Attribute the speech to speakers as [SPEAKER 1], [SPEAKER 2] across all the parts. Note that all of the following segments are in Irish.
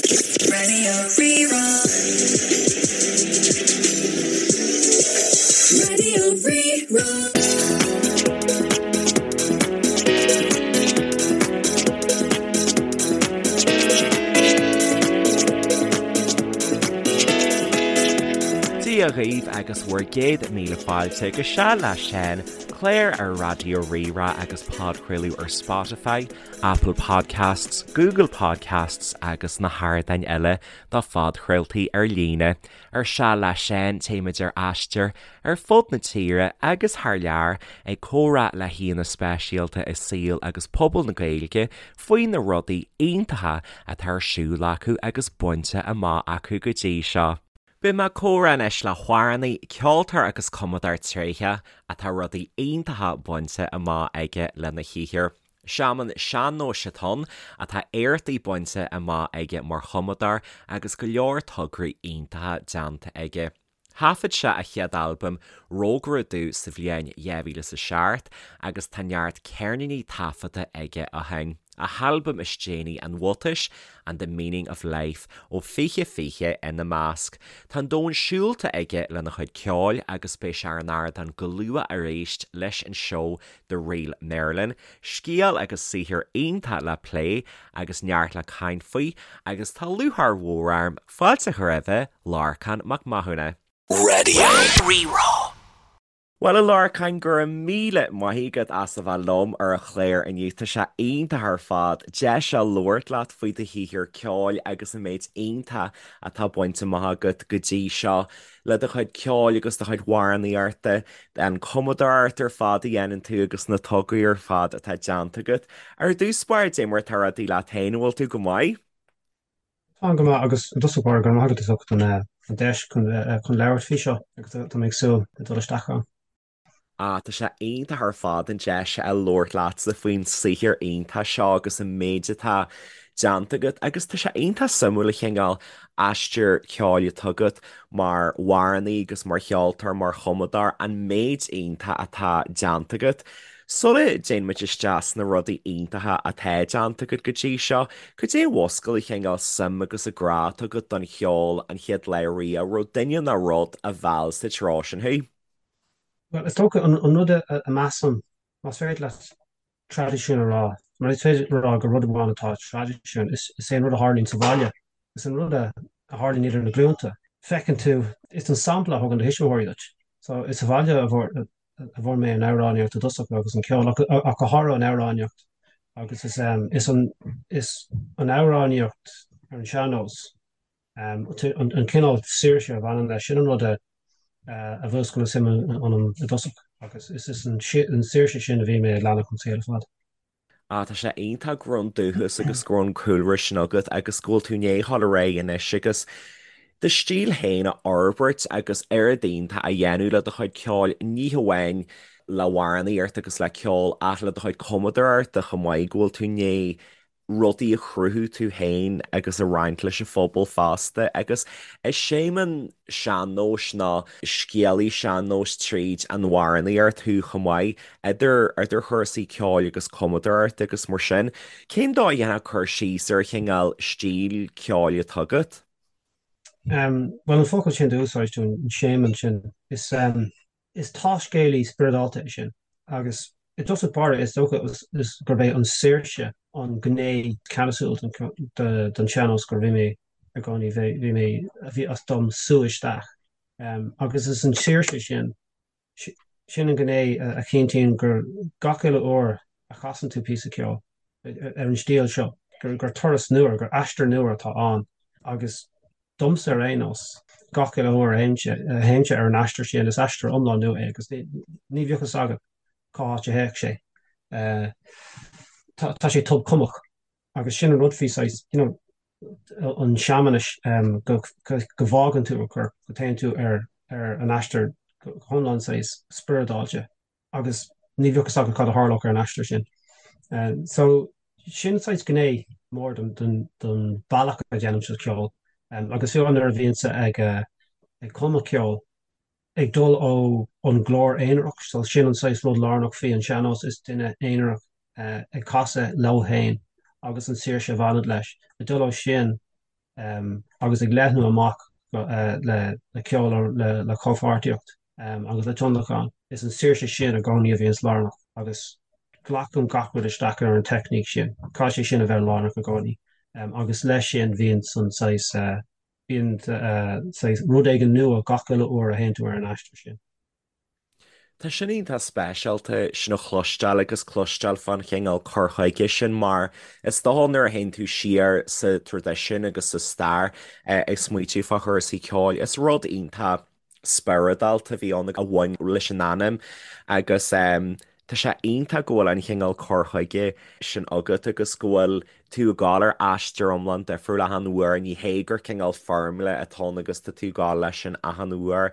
[SPEAKER 1] Radio Rí-Rá. Radio Rí-Rá.
[SPEAKER 2] Dia dhaoibh agus bhur gcéad míle fáilte go Seal le Seán, clár ar Raidió Rí-Rá agus podchraoladh ar Spotify, Apple Podcasts, Google Podcasts agus na hardáin eile do phodchraoltaí ar líne. Ar Seal le Seán téimid ar aistear ar fud na tíre agus thar lear ag comhrá le haíonna speisialta i saol agus pobal na Gaeilge faoi na rudaí iontacha atá ar siúl acu agus bainte amach acu go dtí seo. Beidh mé ag comhrá anois le hamhránaí, ceoltóir agus cumadóir tréitheach atá rudaí iontacha bainte amach aige lena shaothar. Seaman sean-nóis atá ann, atá éachtaí bainte amach aige mar chumadóir agus go leor tograí iontacha déanta aige. Thaifead sé a chéad albam, Rógaire Dubh sa bhliain 2007 agus tá neart ceirníní taifeadta aige ó shin. A halbam is déanaí An Bhuatais and The Meaning of Life ó 2020 ina measc. Tá an domhan siúlta aige lena chuid ceoil agus beidh sé ar an ardán go luath arís leis an seó The Real Merlin, scéal agus saothar iontach le plé agus neart le caint faoi agus tá lúcháir mhór orm fáilte a chur roimhe, Lorcán Mac Mathúna.
[SPEAKER 1] Radio Rí-Rá.
[SPEAKER 2] Bhuel, a Lorcáin, go raibh míle maith agat as a bheith liom ar an chlár inniu. Tá sé iontach ar fad deis a labhairt leat faoi do shaothar ceoil agus an méid iontach atá bainte amach agat go dtí seo le do chuid ceoil agus do chuid amhránaíochta, an cumadóireacht ar fad a dhéanann tú agus na tograí ar fad atá déanta agat. Ar dtús báire, cad é mar atá rudaí leat féin, an bhfuil tú go maith?
[SPEAKER 3] Táim go maith agus i dtosach báire go raibh maith agat as ucht an deis chun labhairt faoi seo agus tá mé ag súil le dul isteach ann.
[SPEAKER 2] Ah, tá sé iontach ar fad an deis a labhairt leatsa faoin saothar iontach seo agus an méid atá déanta agat agus tá sé iontach suimiúil an cineál aistear ceoil atá agat mar amhránaí agus mar cheoltóir, mar chumadóir, an méid iontach atá déanta agat. Sula dtéann muid isteach sna rudaí iontacha atá déanta agat go dtí seo, cad é a mhúscail an cineál suim agus an grá atá agat don cheol an chéad lá riamh? An raibh duine nó rud a mheall sa treo sin thú?
[SPEAKER 3] Bhuel, is dócha an rud a measaim, más féidir leat traidisiún a rá, mar is féidir a rá gur rud amháin atá i traidisiún, is é an rud a tharlaíonn sa bhaile, is an rud a tharlaíonn idir na glúnta. Feiceann tú, is an sampla a thugann do thuismitheoirí duit. So, is sa bhaile a a bhfuair mé an amhránaíocht i dtosach agus an ceol, ach go háirithe an amhránaíocht agus is is an is an amhránaíocht ar an sean-nós, an cineál saoirse a bhaineann leis, sin an rud a a mhúscail an suim ionam i dtosach agus is is an saoirse sin a bhí mé ag leanacht an saol ar fad.
[SPEAKER 2] Ah, tá sé iontach go raibh an dúchas agus go raibh an cúlra sin agat agus go bhfuil tú i ndiaidh a dhul ar aghaidh anois agus do stíl féin a fhorbairt agus oiread iontach a dhéanamh le do chuid ceoil, ní hamháin le hamhránaíocht agus le ceol ach le do chuid cumadóireachta chomh maith, go bhfuil tú i ndiaidh rudaí a chruthú tú féin agus a roinnt leis an phobal fosta agus is seaman sean-nóis nó scéalaí sean-nóis tríd an amhránaíocht thú chomh maith, idir idir chúrsaí ceoil agus cumadóireachta agus mar sin. Cén dóigh a ndéanfá cur síos ar an chineál stíl ceoil atá agat?
[SPEAKER 3] Bhuel, an focal sin d'úsáid tú, an seaman sin, is. Is taiscéalaí spioradálta é sin agus i dtosach báire is dócha gurb é an saoirse an gné ceannasúil den sean-nós gur bhí mé i gcónaí, bhí mé, a bhí as dom sú isteach. Agus is an saoirse sin, sin an gné a chinntíonn gur gach uile uair a chasann tú píosa ceoil ar an stíl seo, gur turas nua, gur aistear nua atá ann agus Domsa ar aon nós, gach uile uair a théimse ar an aistear sin, is aistear iomlán nua é agus ní bheadh fhios agat cá háit a théadh sé. Tá sé tobchumadh agus sin an rud faoi saghas, you know, an seamanais go bhfágann tú an corp, go dtéann tú ar an aistear go hiomlán saghas spioradálta. agus ní bheadh fhios agat cad a tharlódh ar an aistear sin. So, sin saghas gné mór den bealach a dhéanaimse ceol. Agus fiú nuair a bhíonnse ag ag cumadh ceoil, ag dul ó an glór aonarach, so sin an saghas rud lárnach faoi an sean-nós, is duine aonarach ag casadh leo féin agus an saoirse a bhaineann leis. Ag dul ó sin. agus ag leathnú amach le ceol, le comhpháirtíocht agus le tionlacan. Is an saoirse sin i gcónaí a bhíonns lárnach agus glacaim gach rud isteach ar an teicníc sin. Caithfidh sé sin a bheith lárnach i gcónaí agus leis sin bíonn an saghas, bíonn saghas rud éigin nua gach uile uair a théann tú ar an aistear sin.
[SPEAKER 2] Tá sin iontach speisialta sin a chloisteáil agus cloisteáil fán chineál cur chuige sin mar is dócha nuair a théann tú siar sa traidisiún agus sa stair ag smaoitiú fá chúrsaí ceoil is rud iontach spioradálta a bhí ann a bhain leis an anam agus tá sé iontach go bhfuil an chineál cur chuige sin agat agus go bhfuil tú ag gabháil ar aistear iomlán difriúil achan uair, ní hé gur cineál foirmle atá ann agus tá tú ag gabháil leis sin achan uair.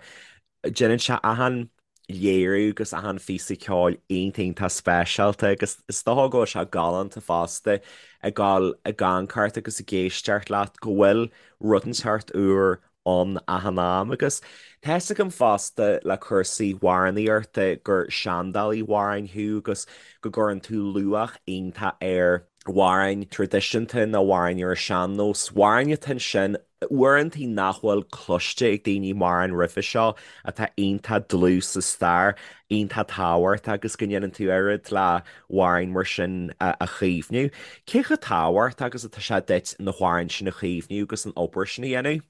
[SPEAKER 2] Déanann sé achan léiriú agus achan phíosa ceoil iontach iontach speisialta agus is dócha go bhfuil sé galánta fosta ag gabháil ag amharc ort agus ag éisteacht leat go bhfuil rud inteacht úr ann achan am agus tá fhios agam fosta le cúrsaí amhránaíochta gur seandálaí amhráin thú agus go gcuireann tú luach iontach ar amhráin traidisiúnta nó amhráin ar an sean-nós, amhráin atá ansin uaireantaí nach bhfuil cloiste ag daoine mórán roimhe seo, atá iontach dlúth sa stair, iontach tábhachtach agus go ndéanann tú oiread le hamhráin mar sin a chaomhnú. Cé chomh tábhachtach agus atá sé duit na hamhráin sin a chaomhnú agus an obair sin a dhéanamh?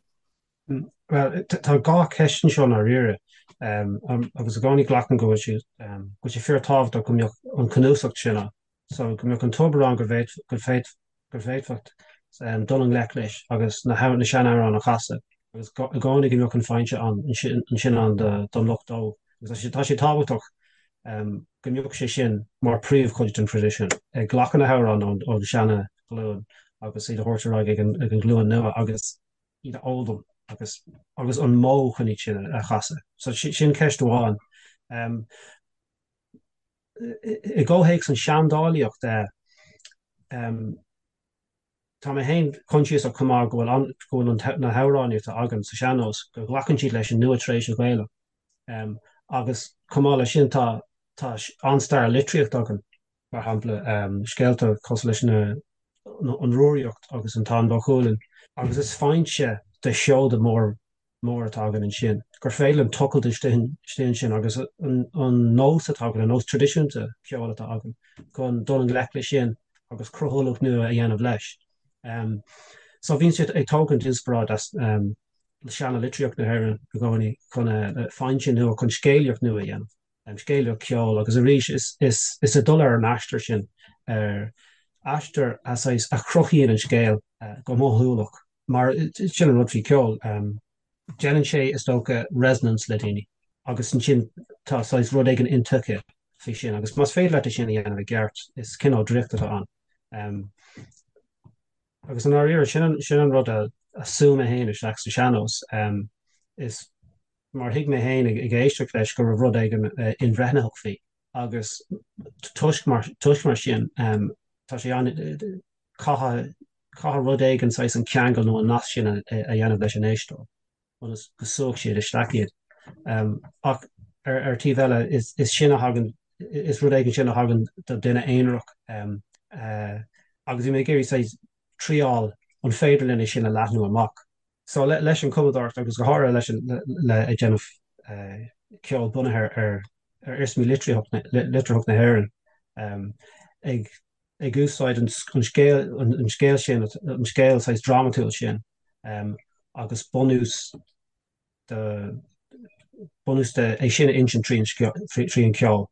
[SPEAKER 3] Bhuel, tá dhá cheist anseo i ndáiríre, agus i gcónaí glacaim go bhfuil sé, go bhfuil sé fíorthábhachtach go mbeadh an cnuasach sin ann. So go mbeadh an tobar ann go bhféadfadh dul i ngleic leis agus na seanamhráin a chasadh agus i gcónaí go mbeadh an foinse ann ansin ann don lucht óg. Agus tá sé tábhachtach go mbeadh sé sin mar príomhchuid den traidisiún, ag glacadh na hamhráin ón seana-ghlúin agus iad a thabhairt ar aghaidh ag an ghlúin nua agus iad a fhoghlaim agus agus an modh chun iad sin a chasadh. So sin ceist amháin. I gcomhthéacs an seandálaíocht, tá mé féin coinsiasach chomh maith go bhfuil go bhfuil na hamhráin atá againn sa sean-nós, go nglacann siad leis an nua tar éis an Ghaeilge. Agus chomh maith leis sin tá tá an-stair litríochta againn, mar shampla scéalta cosúil leis na an Rúraíocht agus an Táin Bó Cuailgne, agus is foinse de sheoda mór mór atá againn ansin, gur féidir linn tochailt istigh ansin agus an nós atá againn, an nós traidisiúnta ceoil atá againn, chun dul i ngleic leis sin agus cruthúlacht nua a dhéanamh leis. So bíonn siad ag tógaint inspioráid as seana-litríocht na hÉireann i gcónaí chun foinse nua, chun scéalaíocht nua a dhéanamh. scéalaíocht ceoil agus arís is is ag dul ar an aistear sin, ar aistear a saghas a chruthaíonn an scéal go mothúlach mar sin an rud faoi cheol, déanann sé is dócha resonance le daoine agus ansin tá saghas rud éigin intuigthe faoi sin agus más féidir leat é sin a dhéanamh i gceart is cineál draíocht atá ann. Agus i ndáiríre sin sin an rud a a shú mé féin isteach sa sean-nós is mar thuig mé féin ag éisteacht leis go raibh rud éigin inbhreathnaitheach faoi agus toisc mar toisc mar sin tá sé an caithfidh caithfidh rud éigin saghas an ceangal nó an nasc sin a dhéanamh leis an éisteoir ionas go súfadh siad isteach iad. Ach ar ar taobh eile is is sin a thagann is rud éigin sin a thagann do duine aonarach agus bhí mé ag iarraidh saghas triáil an féidir linn é sin a leathnú amach. So leis an chumadóireacht agus go háirithe leis an le ag déanamh ceol bunaithe ar ar iarsmaí litearthacht na hÉireann ag ag úsáid an scéal an scéal sin an scéal saghas drámatúil sin agus bunús de bunús de é sin a insint trí an ceol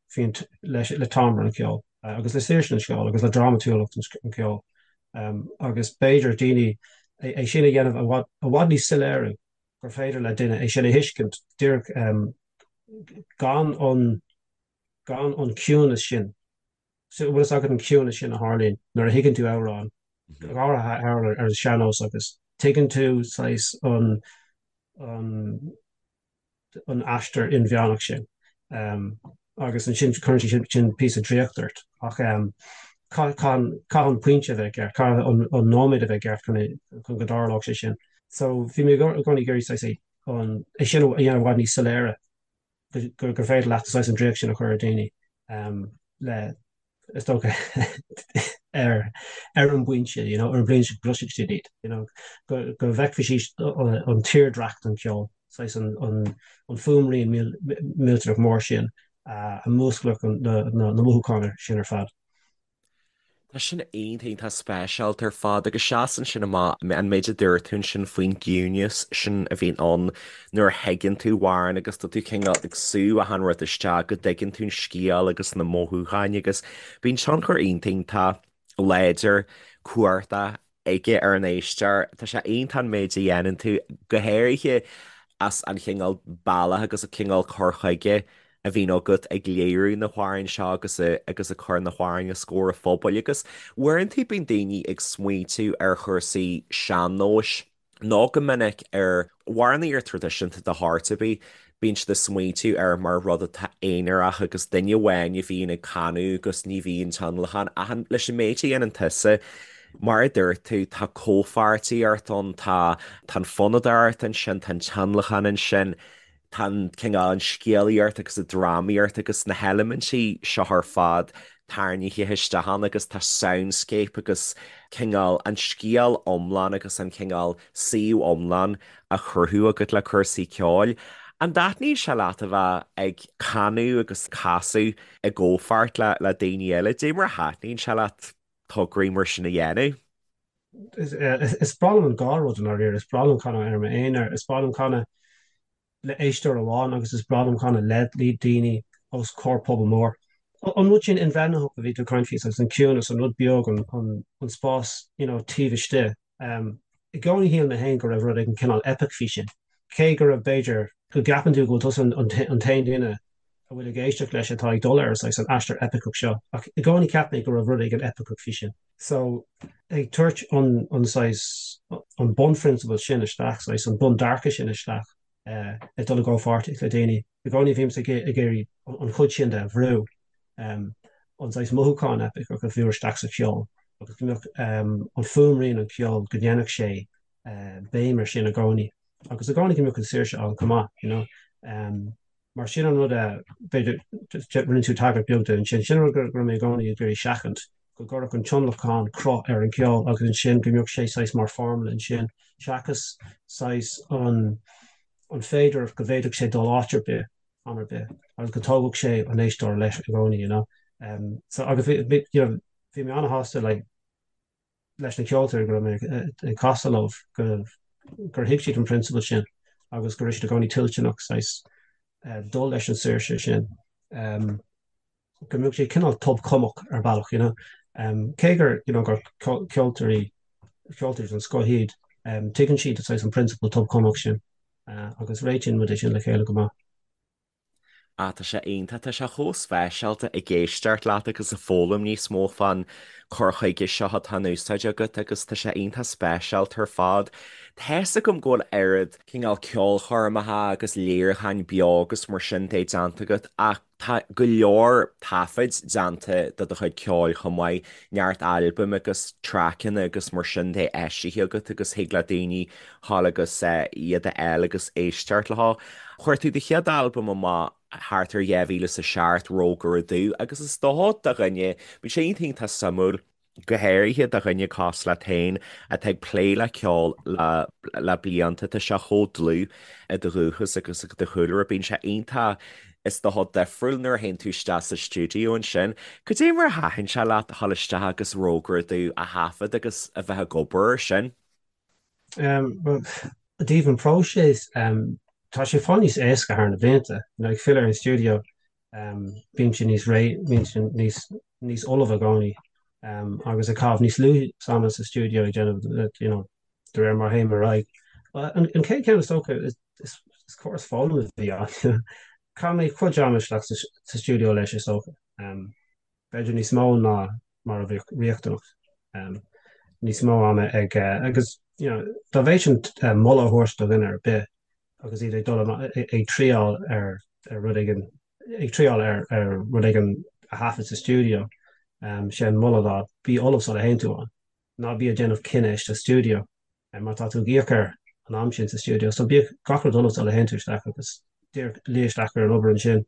[SPEAKER 3] leis le timbre an cheoil agus le saoirse an cheoil agus le drámatúlacht an cheoil agus b'fhéidir daoine é sin a dhéanamh i bhfad i bhfad níos soiléire gur féidir le duine é sin a thuiscint díreach gan an gan an ciúnas sin. So bhfuil fhios agat an ciúnas sin a tharlaíonn nuair a thuigeann tú amhrán, go háirithe amhrán ar an sean-nós agus tuigeann tú saghas an an an aistear inmheánach sin agus ansin cuireann sé sin píosa draíocht ort ach caithfidh an pointe a bheith ceart, caithfidh an nóiméad a bheith ceart chun go dtarlódh sé sin. So bhí mé i gcónaí ag iarraidh saghas é sin a dhéanamh i bhfad níos soiléire gur féidir leat saghas an draíocht sin a chur ar daoine le is dócha. ar ar an bpointe, you know, ar an bpointe go gcloisfidh siad iad, you know, go go bhfeicfidh siad an tírdhreach den cheol, saghas an an an fuaimrian millteanach mór sin a mhúsclódh na na na mothúcháin sin ar fad.
[SPEAKER 2] Tá sin iontach, iontach speisialta ar fad agus seasann sin amach an méid a dúirt tú ansin faoin gciúnas sin a bhíonn ann nuair a thuigeann tú amhrán agus tá tú cineál ag sú achan rud isteach go dtuigeann tú an scéal agus na mothúcháin agus bíonn tionchar iontach, iontach láidir, cumhachtach aige ar an éisteoir. Tá sé iontach an méid a dhéanann tú, go háirithe as an chineál bealach agus an cineál cur chuige a bhíonn agat ag léiriú na hamhráin seo agus agus ag cur na hamhráin os comhair an phobail. Agus uaireanta bíonn daoine ag smaointiú ar chúrsaí sean-nóis nó go minic ar amhránaíocht traidisiúnta de shórt ar bith, bíonn siad ag smaointiú air mar rud atá aonarach agus duine amháin a bhíonn ag canadh agus ní bhíonn tionlacan ach leis an méid a dhéanann tusa, mar a dúirt tú, tá comhpháirtíocht ann, tá tá an fonnadóireacht ansin, tá an tionlacan ansin, tá an cineál an scéalaíocht agus an drámaíocht agus na heilimintí seo ar fad tarraingthe isteach ann agus tá soundscape agus cineál an scéal iomlán agus an cineál suíomh iomlán á chruthú agat le cúrsaí ceoil. An dtaitníonn sé leat a bheith ag canadh agus casadh i gcomhpháirt le le daoine eile? Dé mar a thaitníonn sé leat tograí mar sin a dhéanamh?
[SPEAKER 3] Is breá liom an dhá rud i ndáiríre. Is breá liom canadh ar m'aonar, is breá liom canadh le éisteoir amháin agus is breá liom canadh le daoine os comhair pobal mór. An rud sin inbhreathnaitheach a bhí tú ag caint faoi, saghas an ciúnas, an rud beag, an spás you know taobh istigh. I gcónaí shíl mé féin go raibh rud éigin cineál epic faoi sin. Cé go raibh b'fhéidir go gceapann tú go bhfuil tusa an t-aon duine a bhfuil ag éisteacht leis atá ag dul ar saghas an aistear eipiceach seo, ach i gcónaí cheap mé go raibh rud éigin eipiceach faoi sin. So, ag tabhairt an an saghas an bunphrionsabal sin isteach, saghas an bundearcadh sin isteach, ag dul i gcomhpháirtíocht le daoine, i gcónaí bhímse ag iarraidh an chuid sin de a bhrú, an saghas mothúchán eipiceach a bhrú isteach sa cheol agus go mbeadh an fuaimrian an cheoil, go ndéanfadh sé béim ar sin i gcónaí agus i gcónaí go mbeadh an saoirse ann chomh maith, you know. Mar sin an rud a, b'fhéidir, rinne tú tagairt beag de ansin, sin an rud go raibh mé i gcónaí ag iarraidh seachaint, go gcuirfeadh an tionlacan cruth ar an cheol agus ansin go mbeadh sé saghas mar formula ansin, seachas saghas an an féidearthacht go bhféadfadh sé dul áit ar bith, am ar bith, agus go dtógfadh sé an éisteoir leis i gcónaí, you know. So agus bhí, you know, bhí mé an-shásta like, leis na ceoltóirí go raibh mé ag casadh leo gur thuig siad an prionsabal sin agus go raibh siad i gcónaí toilteanach saghas dul leis an saoirse sin, go mbeadh sé cineál tobchumadh ar bhealach, you know. Cé gur, you know, gur ceoltóirí, ceoltóirí den scoth iad, tuigeann siad saghas an prionsabal tobchumadh sin agus réitíonn muid é sin le chéile go maith.
[SPEAKER 2] Ah, tá sé iontach, tá sé chomh speisialta ag éisteacht leat agus ag foghlaim níos mó fán cur chuige seo atá in úsáid agat agus tá sé iontach speisialta ar fad. Tá's agam go bhfuil oiread cineál ceolchoirmeacha agus léiriúcháin beo agus mar sin de déanta agat ach tá go leor taifid déanta de do chuid ceoil chomh maith, neart albaim agus traiceanna agus mar sin de eisithe agat agus thig le daoine ghabháil agus iad a fháil agus éisteacht leo. Chuir tú do chéad albam amach thart ar 2007, Rógaire Dubh, agus is dócha do dhuine, bíonn sé iontach iontach suimiúil, go háirithe do dhuine cosúil leat féin atá ag plé le ceol le le blianta, tá sé chomh dlúth i do dhúchas agus i do chúlra, bíonn sé iontach, is dócha, difriúil nuair a théann tú isteach sa stiúideo ansin. Cad é mar a thaitin sé leat a dhul isteach agus Rógaire Dubh a thaifead agus a bheith ag obair air sin?
[SPEAKER 3] I dtaobh an próiseas, tá sé fáil níos éasca thar na blianta. You know, ag filleadh ar an stiúideo, bímse níos réidh, bímse níos, níos ullamh i gcónaí, agus ag caitheamh níos lú ama sa stiúideo ag déanamh, you know, de réir mar a théim ar aghaidh. An chéad cheann is dócha, is, is córas foghlama a bhí ann. Chaith mé cuid ama isteach sa stiúideo leis is dócha. B'fhéidir níos mó ná mar a bheadh riachtanach. Níos mó ama ag agus you know dá bhféadfainn moladh a thabhairt do dhuine ar bith agus iad ag dul ag triáil ar ar rud éigin ag triáil ar ar rud éigin a thaifead sa stiúideo, sé an moladh ná bí ullamh sula théann tú ann. Ná bí ag déanamh cinneadh istigh sa stiúideo mar tá tú ag íoc ar an am sin sa stiúideo. So bíodh gach rud ullamh sula théann tú isteach agus díreach luí isteach ar an obair ansin.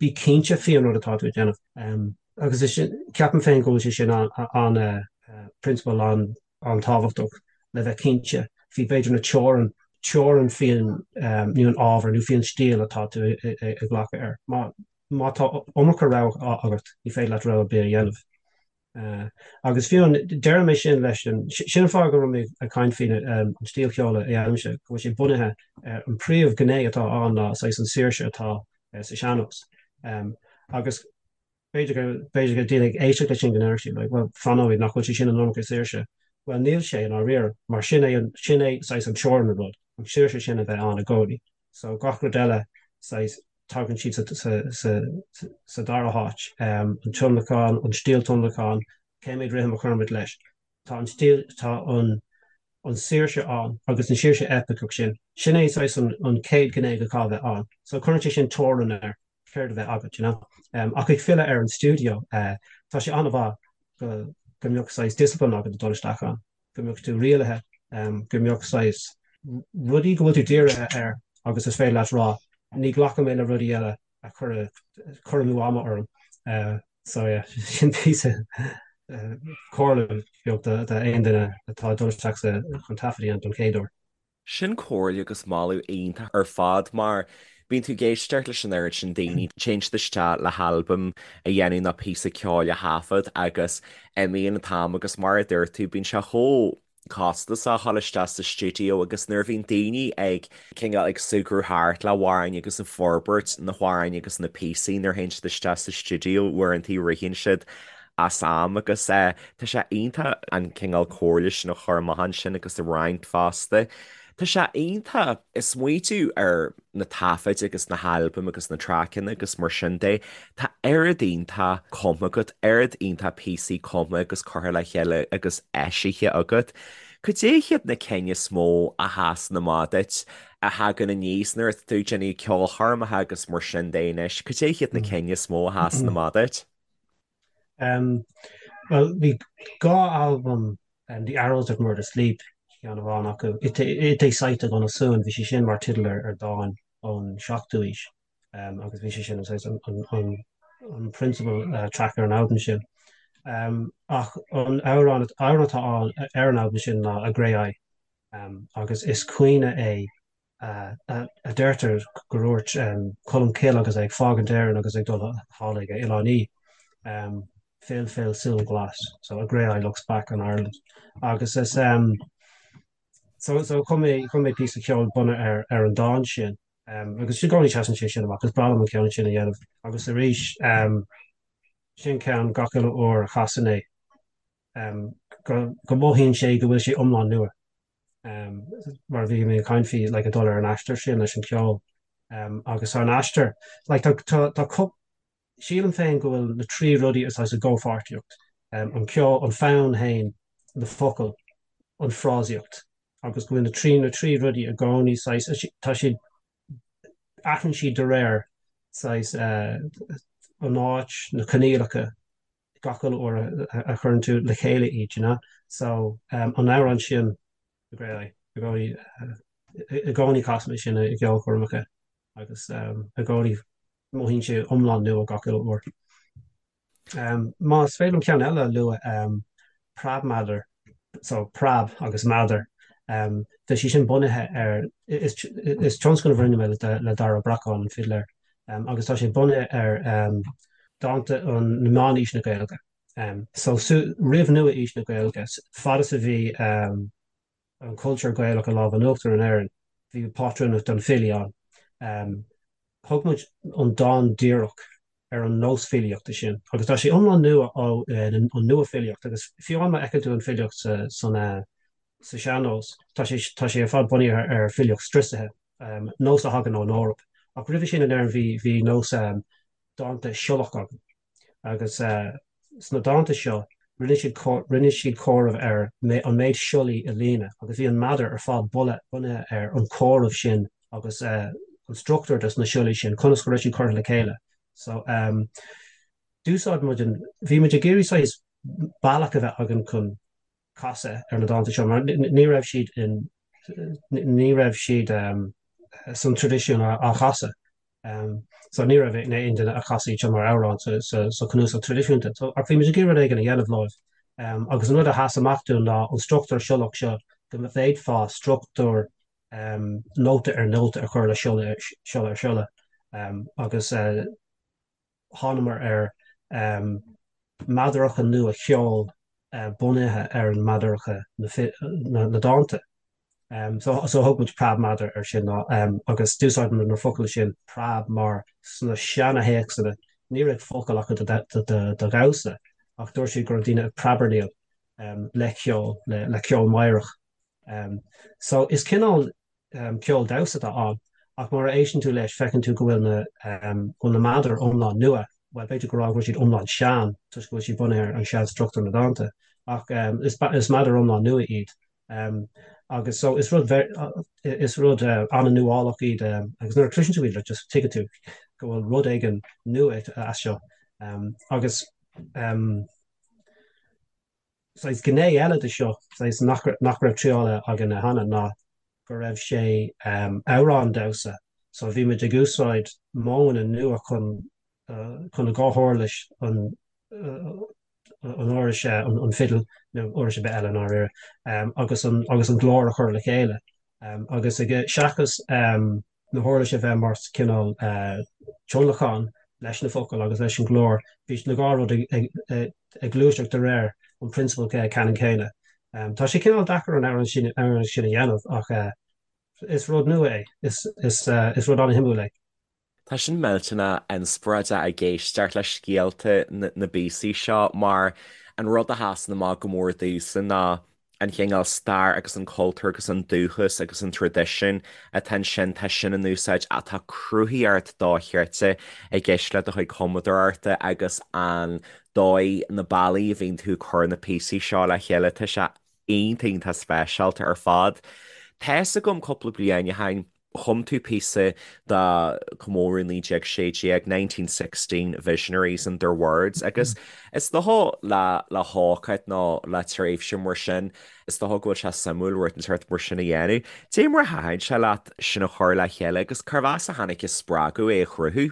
[SPEAKER 3] Bí cinnte faoi an rud atá tú ag déanamh. Agus is sin, ceapaim féin go bhfuil sé sin an-prionsabal an-tábhachtach le bheith cinnte faoi b'fhéidir na teorainn, teorainn faoin nó an ábhar nó faoin stíl atá tú ag glacadh air. Má má tá iomarca rogha agat, ní féidir leat rogha ar bith a dhéanamh. Agus fiú, deirim é sin leis an, sin an fáth go raibh mé ag caint faoin an stíl cheoil a dhéanaimse, go bhfuil sé bunaithe ar an príomh ghné atá ann ná saghas an saoirse atá sa sean-nós. Agus b'fhéidir go, b'fhéidir go daoine ag éisteacht leis sin go ndéarfadh siad like, well, fan nóiméad, nach bhfuil sé sin an iomarca saoirse? Bhuel, níl sé i ndáiríre, mar sin é an, sin é saghas an teorainn an rud, an saoirse sin a bheith ann i gcónaí. So gach rud eile, saghas, tagann siad sa dara háit. An tionlacan, an stíl tionlacan, cé mhéad rithim a chuirimid leis. Tá an stíl, tá an an saoirse ann agus an saoirse eipiceach sin. Sin é saghas an chéad ghné go caithfidh a bheith ann. So cuireann sé sin teorainn ar céard a bheith agat, you know. Ach ag filleadh ar an stiúideo, tá sé an-mhaith go go mbeadh saghas discipline agat ag dul isteach ann. go mbeadh tú rialaithe, go mbeadh saghas rudaí go bhfuil tú dírithe air agus is féidir leat rá, ní ghlacfaidh mé le rudaí eile a chuirfeadh cur amú ama orm. So yeah, sin píosa comhairle beag d'aon duine atá ag dul isteach chun taifead a dhéanamh don chéad uair.
[SPEAKER 2] Sin comhairle agus moladh iontach ar fad mar bíonn tú ag éisteacht leis an oiread sin daoine, téann siad isteach le halbam a dhéanamh nó píosa ceoil a thaifead agus imíonn an t-am agus mar a dúirt tú bíonn sé chomh costasach a dhul isteach sa stiúideo agus nuair a bhíonn daoine ag cineál ag súgradh thart le hamhráin agus ag forbairt na hamhráin agus na píosaí nuair a théann siad isteach sa stiúideo uaireanta ritheann siad as am agus tá sé iontach an cineál comhairle sin a chur amach ansin agus a roinnt fosta. Tá sé iontach smaoitiú ar na taifid agus na halbaim agus na traiceanna agus mar sin de. Tá oiread iontach cumtha agat, oiread iontach píosaí cumtha agus curtha le chéile agus eisithe agat. Cad é hiad na cinn is mó a sheasann amach duit, a thagann aníos nuair atá tú ag déanamh ceolchoirmeacha agus mar sin de anois? Cad é hiad na cinn is mó a sheasann amach duit?
[SPEAKER 3] Bhuel, bhí dhá albam, The Arrows That Murder Sleep, ceann amháin acu, It é Saite gona Suan, bhí sé sin mar teideal ar dán ón seachtú aois, agus bhí sé sin saghas an principal track ar an albam sin. Ach an amhrán atá ann ar an albam sin ná A Grey Eye, agus is caoineadh é a deirtear gur dhúirt Colm Cille agus é ag fágaint Éireann agus ag dul thall ag Oileán Í, Fill, fill, súil ghlas, so a grey eye looks back on Ireland. Agus is so so chum mé chum mé píosa ceoil bunaithe ar ar an dán sin. Agus i gcónaí seasann sé sin amach, is breá liom an ceann sin a dhéanamh. Agus arís sin ceann gach uile uair a chasaim é go go mothaíonn sé go bhfuil sé iomlán nua. mar a bhí mé ag caint faoi like ag dul ar an aistear sin leis an cheol agus an aistear like tá tá tá cup sílim féin go bhfuil na trí rudaí is i gcomhpháirtíocht an ceol an fonn féin na focail an frásaíocht agus go bhfuil na trí na trí rudaí i gcónaí saghas tá siad athraíonn siad de réir saghas an áit na coinníollacha gach uile uair a chuireann tú le chéile iad, you know. So, an amhrán sin, The Grey Eye, i gcónaí, i gcónaí casaim é sin i gceolchoirmeacha agus i gcónaí mothaíonn sé iomlán nua gach uile uair. Más féidir liom ceann eile a lua, Preabmeadar, so preab agus meadar, tá sé sin bunaithe ar, is tionscnamh a rinne mé le Dara Ó Bracáin, an fidléir, agus tá sé bunaithe ar dánta an na meánaois na Gaeilge. So roimh nua-aois na Gaeilge, fad is a bhí an cultúr Gaelach i lámh in uachtar in Éirinn, bhí pátrúnacht don filí ann. Thug muid an dán díreach ar an nós filíochta sin agus tá sé iomlán nua ó an nua-fhilíocht agus fiú amháin má fheiceann tú an filíocht sa san sa sean-nós, tá sé tá sé ar fad bunaithe ar filíocht striosaithe, nós a thagann ón Eoraip. Ach roimhe sin in Éirinn bhí bhí nós dánta siollach againn agus sna dánta seo rinne siad rinne siad comhaireamh ar an méid siollaí i líne agus bhí an meadar ar fad bunaithe ar an comhaireamh sin agus an struchtúr dos na siollaí sin, conas go raibh siad curtha le chéile. So d'úsáid muid an, bhí muid ag iarraidh saghas bealach a bheith againn chun casadh ar na dánta seo mar ní raibh siad in ní raibh siad san traidisiún á chasadh. So ní raibh aon duine a chas iad seo mar amhrán sa chnuasach traidisiúnta. So ach bhí muid ag iarraidh rud éigin a dhéanamh leo. Agus an rud a sheas amach dúinn ná an struchtúr siollach seo, go bhféadfá struchtúr nóta ar nóta a chur le siolla ar siolla. Agus thánamar ar meadaracha nua cheoil bunaithe ar an meadaracha na dánta. So thug muid preabmheadar air sin agus d'úsáid muid na focail sin preab mar sna seana-théacsanna ní raibh focal acu do dhamhsa ach dúirt siad go raibh daoine ag preabarnaíl le ceol, le ceol meidhreach. So is cineál ceol damhsa atá ann, ach mar a éisteann tú leis, feiceann tú go bhfuil na, go bhfuil na meadair iomlán nua, bhuel, b'fhéidir go rá go bhfuil siad iomlán sean, toisc go bhfuil siad bunaithe ar an sean-struchtúr na dánta, ach is, is meadair iomlán nua iad. Agus so is rud, is rud an-nuálach iad, agus nuair a chloiseann tú iad, like, just tuigeann tú go bhfuil rud éigin nua as seo. Agus. Saghas gné eile de seo, saghas nach nach raibh triáilte againne cheana, ná go raibh sé amhrán damhsa. So bhí muid ag úsáid modhanna nua chun chun an dá huirlis, an an uirlis an fidil nó uirlis ar bith eile i ndáiríre, agus an agus an glór a chur le chéile. Agus ag seachas na huirlis a bheith mar cineál tionlacan leis na focail agus leis an nglór. Bhí na dhá rud ag gluaiseacht de réir an prionsabal ceannann céanna. Tá sé cineál deacair an amhrán sin a dhéanamh ach is rud nua é. Is rud an-shuimiúil é.
[SPEAKER 2] Tá sin millteanach inspioráideach ag éisteacht le scéalta na bpíosaí seo mar an rud a sheasann amach go mór domhsa ná an chineál stair agus an cultúr agus an dúchas agus an traidisiún atá ansin, tá sin in úsáid ach tá cruthaíocht dochreidte i gceist le do chuid cumadóireachta agus an dóigh, na bealaí a bhíonn tú ag cur na píosaí seo le chéile, tá sé iontach, iontach speisialta ar fad. Tá fhios agam cúpla bliain ó shin, Chum tú píosa do chomóradh 1916, 1916 Visionaries and Their Words, agus is dócha le le hócáid nó le tréimhse mar sin, is dócha go bhfuil sé suimiúil rud inteacht mar sin a dhéanamh. Cad é mar a thaitin sé leat sin a chur le chéile agus cérbh as a tháinig an spreagadh é a chruthú?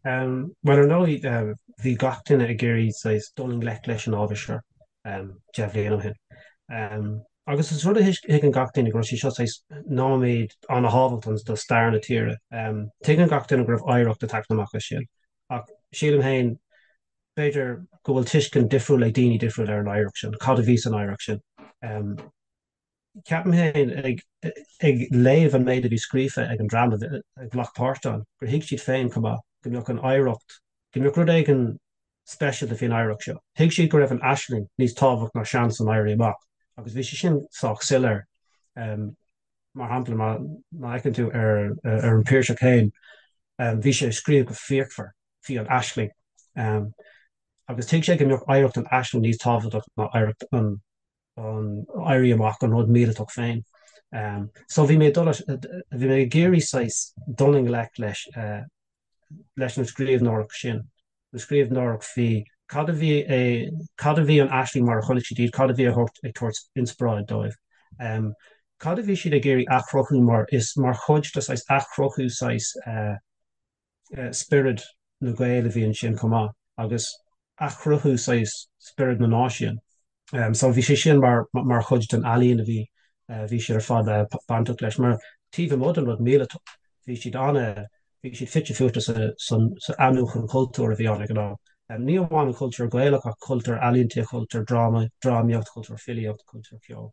[SPEAKER 3] Bhuel, ar ndóigh, bhí gach duine ag iarraidh saghas dul i ngleic leis an ábhar seo 10 bhliain ó shin. Agus is rud a thuigeann gach duine go raibh sé seo saghas nóiméad an-thábhachtach do stair na tíre. Tuigeann gach duine go raibh oidhreacht ag teacht amach as sin. Ach sílim féin, b'fhéidir go bhfuil tuiscint difriúil ag daoine difriúil ar an oidhreacht sin, cad a bhí san oidhreacht sin. Ceapaim féin, ag léamh an méid a bhí scríofa ag an dream a ghlac páirt ann, gur thuig siad féin chomh maith go mbeadh an oidhreacht, go mbeadh rud éigin speisialta faoin oidhreacht seo. Thuig siad go raibh an aisling níos tábhacht ná seans an Éirí Amach agus bhí sé sin sách soiléir. Mar shampla, má fheiceann tú ar an Piarsach féin, bhí sé ag scríobh go fíochmhar faoi an aisling agus thuig sé go mbeadh oidhreacht an aisling níos tábhachtach ná oidhreacht an an Éirí Amach, an rud míleatach féin. So bhí mé ag dul, bhí mé ag iarraidh saghas dul i ngleic leis, leis an scríbhneoireacht sin, an scríbhneoireacht faoi cad a bhí, cad a bhí an aisling mar a chonaic siad iad, cad a bhí a thabhairt, ag tabhairt inspioráid dóibh. Cad a bhí siad ag iarraidh athchruthú mar is mar chuid de saghas athchruthú saghas, spiorad na Gael a bhí ansin chomh maith agus athchruthú saghas spiorad na náisiún. So bhí sé sin mar mar chuid den ealaín a bhí bhí siad ar fad bainteach leis. Mar taobh amuigh den rud míleatach bhí siad ana bhí siad fite fuaite sa san sa athnuachan cultúir a bhí ann ag an am. Ní amháin an cultúr Gaelach ach cultúr ealaíonta, cultúr dráma, drámaíocht, cultúr filíocht, cultúr ceoil.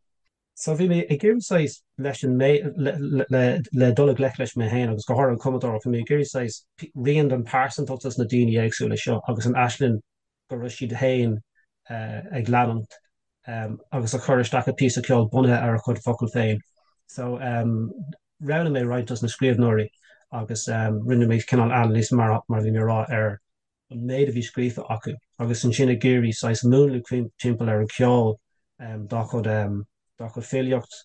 [SPEAKER 3] So bhí mé ag iarraidh saghas leis an mé le le dul i ngleic leis mé féin agus go háirithe an cumadóireacht, bhí mé ag iarraidh saghas rian den pearsantacht dos na daoine éagsúla seo agus an aisling go raibh siad féin ag leanúint agus a chur isteach i píosa ceoil bunaithe ar a chuid focal féin. So roghnaigh mé roinnt dos na scríbhneoirí agus rinne mé cineál anailís mar mar a bhí mé ag rá ar an méid a bhí scríofa acu agus ansin ag iarraidh saghas múnlú timpeall ar an cheol dá chuid dá chuid filíocht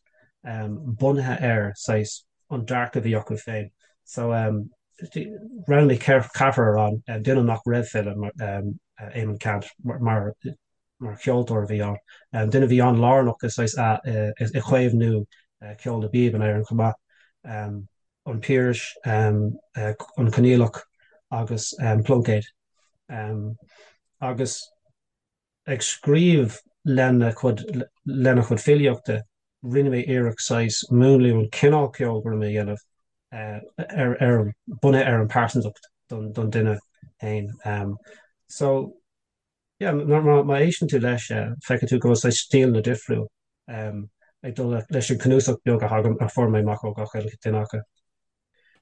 [SPEAKER 3] bunaithe ar saghas an dearcadh a bhí acu féin. So roghnaigh mé ceathrar ann, duine nach raibh file, Éamonn Ceannt, mar mar cheoltóir a bhí ann, duine a bhí an-lárnach i saghas i chaomhnú ceol na bpíob in Éirinn chomh maith. An Piarais, An Conghaileach agus Pluincéad. Agus ag scríobh lena chuid lena chuid filíochta, rinne mé iarracht saghas múnlú an cineál ceoil go raibh mé a dhéanamh ar ar bunaithe ar an pearsantacht don don duine féin. So yeah, má má éisteann tú leis, feicfidh tú go bhfuil saghas stíleanna difriúil ag dul leis an cnuasach beag a thagann a fuair mé amach ó gach uile duine acu.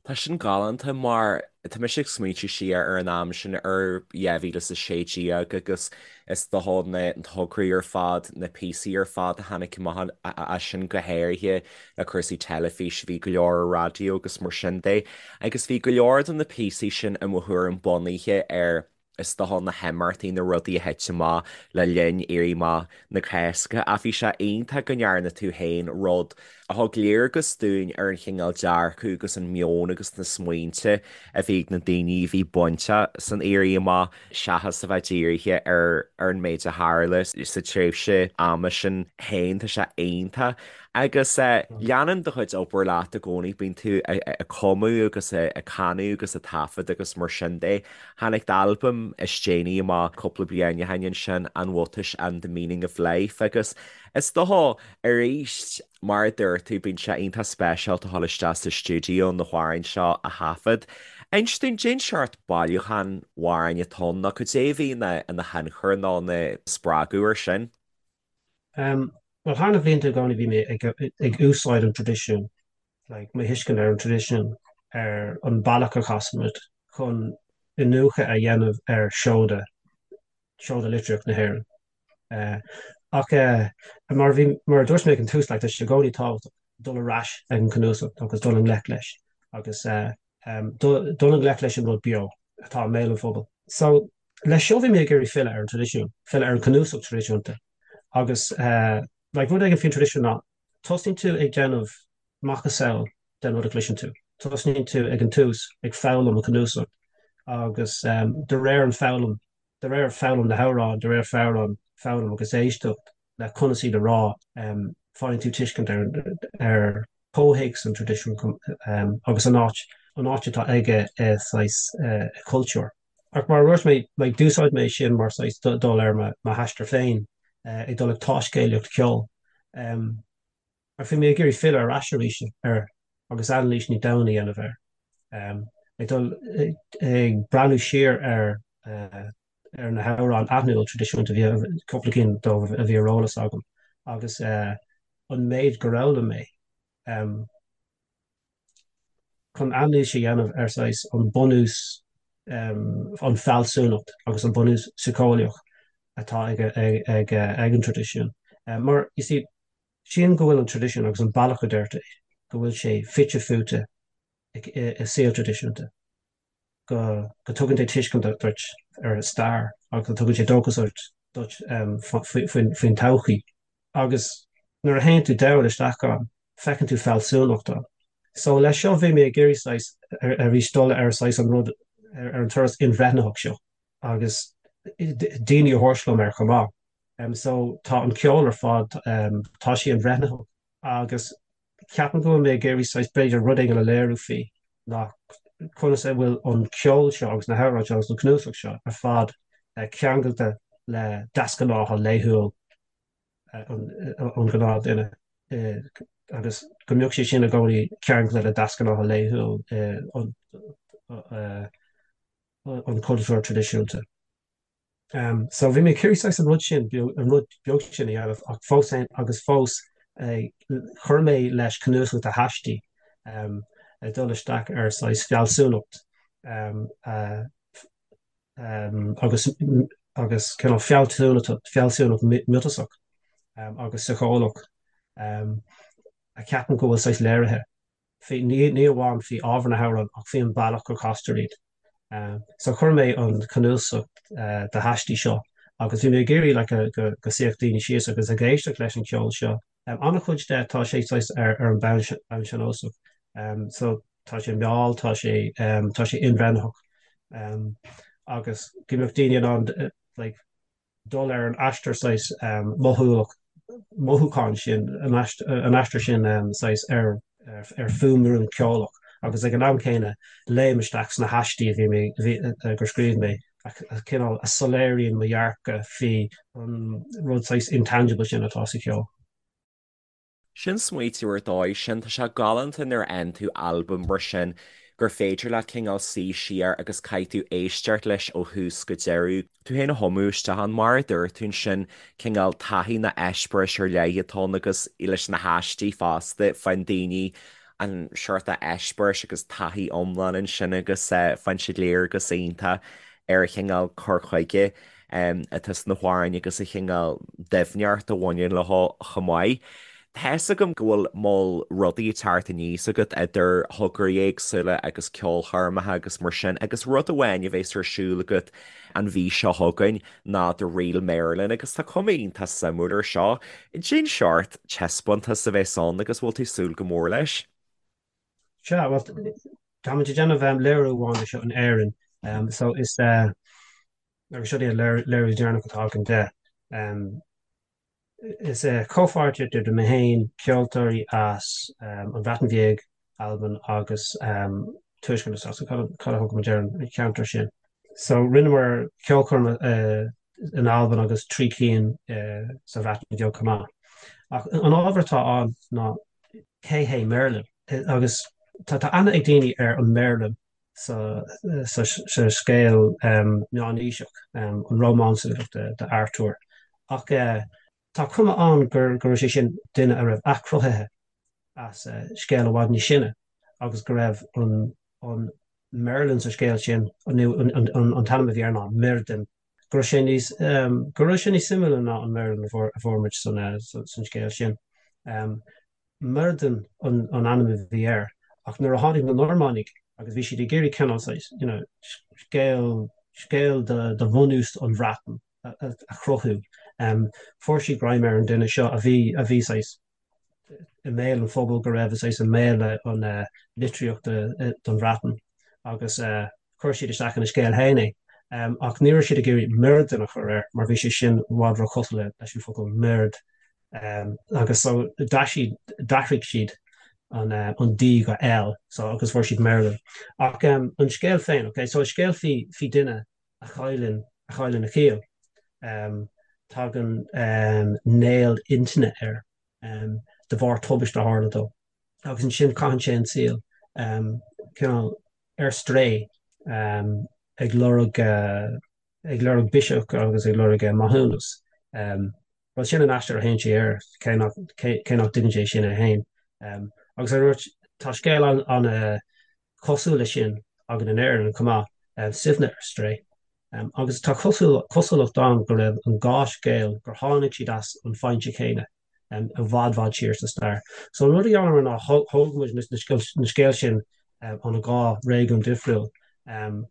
[SPEAKER 2] Tá sin galánta mar tá mise ag smaointiú siar ar an am sin ar 2016 agus is dócha na tograí ar fad, na píosaí ar fad a tháinig amach as sin go háirithe le cúrsaí teilifíse, bhí go leor ar raidió agus mar sin de agus bhí go leor de na píosaí sin i mo thuairim bunaithe ar is dócha na himeachtaí, na rudaí a thit amach le linn Éirí Amach na Cásca. Ach bhí sé iontach go ndearna tú féin rud a thug léargas dúinn ar an chineál dearcadh agus an meon agus na smaointe a bhí ag na daoine a bhí bainteach san Éirí Amach seachas a bheith dírithe ar ar an méid a tharla sa tréimhse ama sin féin. Tá sé iontach. Agus leanann do chuid obair leat i gcónaí, bíonn tú ag cumadh agus ag canadh agus ag taifead agus mar sin de. Tháinig d'albam is déanaí amach cúpla bliain ó shin ansin, An Bhuatais and the Meaning of Life, agus is dócha, arís, mar a dúirt tú, bíonn sé iontach speisialta a dhul isteach sa stiúideo na hamhráin seo a thaifead. Inis dúinn, cén seort bailiúchán amhráin atá ann, nó cad é a bhí ina thionchar nó ina spreagadh air sin?
[SPEAKER 3] Bhuel, thar na blianta i gcónaí bhí mé ag úsáid an traidisiúin, like, mo thuiscint ar an traidisiún, ar an bealach a chasaimid chun iniúchadh a dhéanamh ar seoda, seoda litríocht na hÉireann. Ach mar a bhí, mar a dúirt mé ag an tús, like, tá sé i gcónaí tábhachtach dul ar ais ag an cnuasach agus dul i ngleic leis agus dul i ngleic leis an rud beo atá i mbéal an phobail. So, leis seo bhí mé ag iarraidh filleadh ar an traidisiún, filleadh ar an cnuasach traidisiúnta agus like rud éigin faoin traidisiún ná tosnaíonn tú ag déanamh macasamhail den rud a chloiseann tú. Tosnaíonn tú ag an tús ag foghlaim an cnuasach agus de réir an foghlaim, de réir foghlaim na hamhráin, de réir foghlaim, foghlaim agus éisteacht le conas iad a rá, faigheann tú tuiscint ar ar chomhthéacs an traidisiúin agus an áit, an áit atá aige i saghas cultúr. Ach mar a dúirt mé, like, d'úsáid mé sin mar saghas dul ar mo aistear féin, ag dul ag taiscéalaíocht ceoil. Ach bhí mé ag iarraidh filleadh ar ais arís air agus anailís níos domhaine a dhéanamh air. Ag dul ag breathnú siar ar ar na hamhráin aithniúil traidisiúnta, bhí cúpla cinn dóibh a bhí ar eolas agam, agus an méid gur fhoghlaim mé. Chun anailís a dhéanamh ar saghas an bunús, an fealsúnacht agus an bunús síceolaíoch atá ag an traidisiún. Mar, you see, sílim go bhfuil an traidisiún agus an bealach a deirtear é, go bhfuil sé fite fuaite i saol traidisiúnta. go dtugann sé tuiscint duit ar an stair agus go dtugann sé dóchas duit faoin todhchaí. Agus nuair a théann tú domhain isteach ann, feiceann tú fealsúnacht ann. So leis seo bhí mé ag iarraidh saghas arís dul ar saghas an rud, ar an turas inbhreithnitheach seo agus daoine a thabhairt liom air chomh maith. So tá an ceol ar fad, tá sé inbhreithnitheach agus Ceapaim go bhfuil mé ag iarraidh saghas, b'fhéidir, rud éigin a léiriú faoi ná conas a bhfuil an ceol seo agus na hamhráin seo agus an cnuasach seo ar fad ceangailte le deasghnátha laethúil an ghnáthduine agus go mbeadh sé sin i gcónaí ceangailte le deasghnátha laethúil an chultúir traidisiúnta. So bhí mé ag iarraidh saghas an rud sin, an rud beag sin a dhéanamh ach fós féin agus fós chuir mé leis cnuasach de haistí ag dul isteach ar saghas fealsúnacht agus agus cineál fealsúnacht fealsúnacht miotasach agus síceolaíoch a ceapaim go bhfuil saghas léirithe faoi, ní amháin faoi ábhar na hamhrán ach faoi an bealach go castar iad. So chuir mé an cnuasach de haistí seo agus bhí mé ag iarraidh like go go suífeadh daoine síos agus ag éisteacht leis an cheol seo. An-chuid de tá sé saghas ar ar an bonn bonn sean-nósach. So tá sé mall, tá sé tá sé inbhreithnitheach agus go mbeadh daoine in ann like dul ar an aistear saghas mothúlach, mothúchán sin, an aistear sin saghas ar ar fuaimrian ceolach. Agus ag an am céanna, léim isteach sna haistí a bhí mé, a bhí, gur scríobh mé, a cineál a soiléiríonn mo dhearcadh faoi an rud saghas intangible sin atá sa cheol.
[SPEAKER 2] Sin smaoitiú ar dóigh sin. Tá sé galánta nuair a fhaigheann tú albam mar sin gur féidir leat cineál suí siar agus caithfidh tú éisteacht leis ó thús go deireadh, tú féin a thumadh isteach ann, mar a dúirt tú ansin, cineál taithí nó eispéiris ar leith atá ann agus leis na haistí fosta, faigheann daoine an seort eispéiris agus taithí iomlán ansin agus faigheann siad léargas iontach ar an chineál cur chuige atá sna hamhráin agus an chineál doimhneacht a bhaineann leo chomh maith. Tá fhios agam go bhfuil moll rudaí ag teacht aníos agat idir thograí éagsúla agus ceolchoirmeacha agus mar sin agus rud amháin a bheas ar siúl agat an mhí seo chugainn ná The Real Merlin agus tá cuma iontach suimiúil ar seo. Cén seort taispeántas a bheas ann agus bhfuil tú ag súil go mór leis?
[SPEAKER 3] Sea, bhuel, táimid ag déanamh léiriú amháin de seo in Éirinn so is agus seo é an léiriú deireanach atá againn de. Is comhpháirtíocht idir mé féin, ceoltóirí as an Bhreatain Bheag, Albain agus Tuaisceart na Sasana, cad a thugann muid ar an cheantar sin. So rinneamar ceolchoirm in Albain agus 3 cinn sa Bhreatain Bheag chomh maith. Ach an ábhar atá ann ná cé hé Merlin? Agus tá aithne ag daoine ar an Merlin sa scéal meánaoiseach, an rómánsúlacht de Artúr. Ach tá cuma ann go raibh sé sin duine a raibh athchruthaithe as scéal i bhfad níos sine agus go raibh an Merlin sa scéal sin, nó an t-ainm a bhí air ná Myrddin, go raibh sé níos, go raibh sé níos suimiúla ná an Merlin a fuair muid san scéal sin. Myrddin an ainm a bhí air, ach nuair a tháinig na Normánaigh agus bhí siad ag iarraidh cineál saghas, you know, scéal, scéal de bhunús an Bhreatain a chruthú, fuair siad greim ar an duine seo a bhí, a bhí saghas i mbéal an phobail, go raibh saghas i mbéal an litríochta don Bhreatain agus chuir siad isteach ina scéal féin é. Ach ní raibh siad ag iarraidh Myrddin a chur air mar bhí sé sin i bhfad róchosúil leis an focal murd. Agus so d'athraigh siad an D go L so agus fuair siad Merlin. Ach an scéal féin, ok, so is scéal faoi faoi duine a chailleann a chailleann a chiall. Tagann néal intinne air de bharr tubaiste a tharla dó. Agus ansin caitheann sé an saol cineál ar strae ag lorg ag lorg biseach agus ag lorg maithiúnas. Bhuel, sin an aistear a théann sé air, cé nach, cé nach dtuigeann sé sin é féin. Agus ar dúirt, tá scéal an-chosúil leis sin againn in Éirinn chomh maith, Suibhne ar Strae. Agus tá cosúlacht ann go raibh an dhá scéal, gur tháinig siad as an foinse chéanna i bhfad bhfad siar sa stair. So an rud a dhéanamar ná thóg muid na scéal sin ó na dhá réigiún difriúil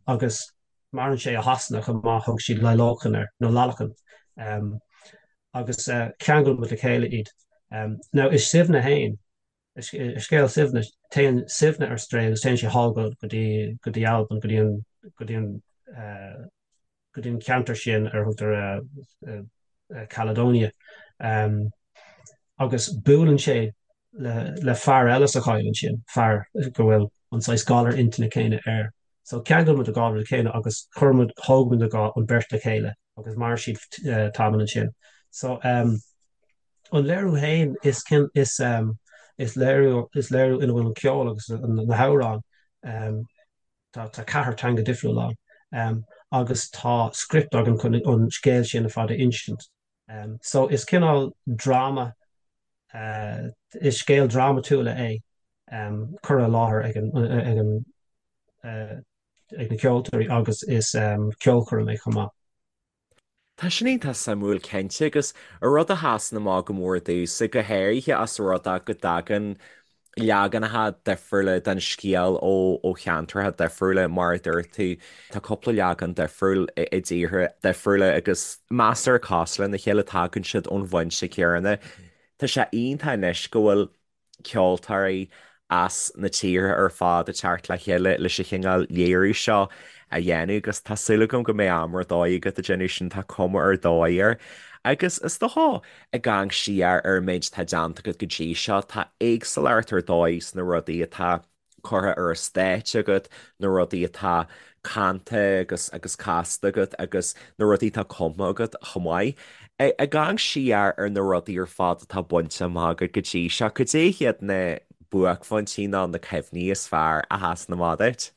[SPEAKER 3] agus Maireann sé i Shasana chomh maith, thug siad Lailoken air, nó Lallochan, agus cheangail muid le chéile iad. Now i Suibhne fhéin, i scéal Suibhne, téann Suibhne ar strae agus téann sé thall go dtí, go dtí Albain, go dtí an, go dtí an, go dtí an ceantar sin ar a thugtar Caledonia. Agus buaileann sé le fear eile sa choill ansin, fear go bhfuil an saghas galar intinne céanna air. So cheangail muid an dhá rud le chéile agus chuir muid, thóg muid an dhá, an beirt le chéile agus mhair siad tamall ansin. So an léiriú féin is is is léiriú is léiriú ina bhfuil an ceol agus na hamhráin tá tá ceathair teanga difriúil ann agus tá script againn chun an scéal sin ar fad a insint. So is cineál dráma, is scéal drámatúla é curtha i láthair ag an ag na ceoltóirí agus is ceolchoirm é chomh maith.
[SPEAKER 2] Tá sin iontach suimiúil cinnte agus an rud a sheasann amach go mór domhsa, go háirithe as an rud é go dtagann leaganacha difriúla den scéal ó cheantracha difriúla, mar a dúirt tú, tá cúpla leagan difriúil i dtíortha difriúla agus measartha cosúil lena chéile, tagann siad ón bhfoinse céanna. Tá sé iontach anois go bhfuil ceoltóirí as na tíortha ar fad ag teacht le chéile leis an chineál léiriú seo a dhéanamh agus tá súil agam go mbeidh am ar dóigh agat ag déanamh sin, tá cuma ar dóigh air. Agus is dócha, ag amharc siar ar an méid atá déanta agat go dtí seo, tá éagsúlacht ar dóigh sna rudaí atá. curtha ar an stáitse agat, na rudaí atá canta agus agus casta agat agus na rudaí atá cumtha agat chomh maith. Ag amharc siar ar na rudaí ar fad atá bainte amach agat go dtí seo, cad é hiad na buaicphointí nó na cuimhní is fearr a sheasann amach duit?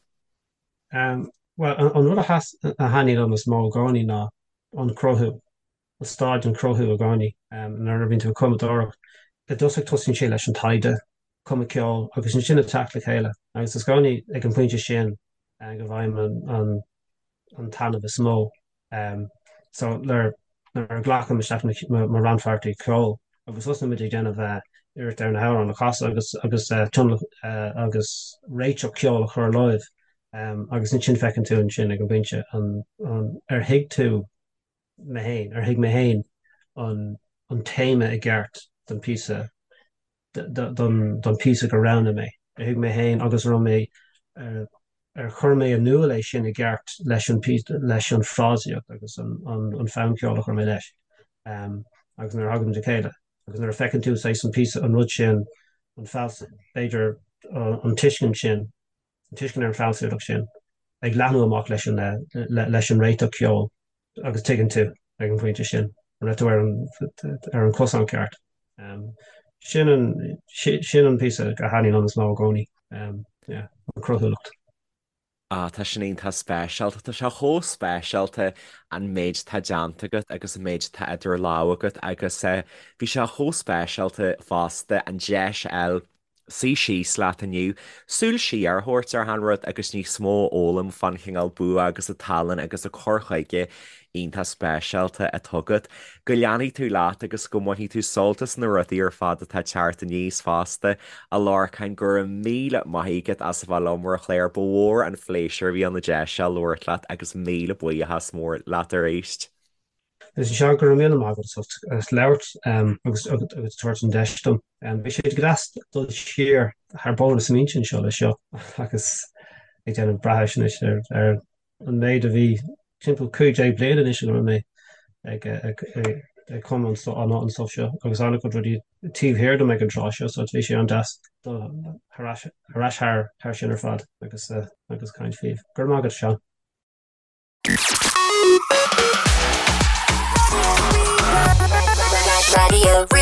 [SPEAKER 3] Bhuel, an rud a thaitníonn liom is mó i gcónaí ná an cruthú. an staid an cruthú i gcónaí nuair a bhíonn tú ag cumadóireacht. I dtosach tosaíonn sé leis an taighde, cumadh ceoil agus ansin ag teacht le chéile agus is i gcónaí ag an bpointe sin go bhfaighim an an taitneamh is mó. So nuair a ghlacaim isteach mo rannpháirtí ceoil agus thosnaigh muid ag déanamh iarracht ar na hamhráin a chasadh agus agus agus réiteach ceoil a chur leo agus ansin feiceann tú ansin ag an bpointe an ar thuig tú mé féin, ar thuig mé féin an téama i gceart don phíosa, don phíosa gur roghnaigh mé. Ar thuig mé féin agus an raibh mé, ar chuir mé in iúl é sin i gceart leis an leis an frásaíocht agus an fonn ceoil a chuir mé leis. Agus nuair a thagann muid le chéile agus nuair a feiceann tú saghas an píosa, an rud sin, an fealsamh, b'fhéidir an tuiscint sin, an tuiscint ar an bhfealsúnacht sin ag leathnú amach leis an leis an réiteach ceoil agus tuigeann tú ag an bpointe sin an raibh tú ar an ar an cosán ceart. Sin an sin an píosa a thaitníonn liom is mó i gcónaí, yeah, an cruthúlacht.
[SPEAKER 2] Ah, tá sin iontach speisialta. Tá sé chomh speisialta an méid atá déanta agat agus an méid atá idir lámha agat agus bhí sé chomh speisialta fosta an deis a fháil suí síos leat inniu, súil siar a thabhairt ar achan rud agus níos mó a fhoghlaim fán chineál bua agus an tallann agus an cur chuige iontach speisialta atá agat. Go leanfaidh tú leat agus go mbainfidh tú sult as na rudaí ar fad atá ag teacht aníos fosta. A Lorcáin, go raibh míle maith agat as a bheith liom ar an chlár. Ba mhór an phléisiúr a bhí ann an deis seo labhairt leat agus míle buíochas mór leat arís.
[SPEAKER 3] Is é go raibh míle maith agat as labhairt agus agus tabhairt an deis dom. Bhí sé go deas dul siar thar bóthar na smaointe anseo leis seo agus ag déanamh breithiúnais anois ar an méid a bhí timpeall 15 bliain anois go raibh mé ag ag cumadh an an stuff seo agus an-chuid rudaí taobh thiar dom ag an tráth seo so bhí sé an-deas dul thar ais thar thar sin ar fad agus agus caint faoi. Go raibh maith agat Seán.
[SPEAKER 1] Raidió Rí-Rá.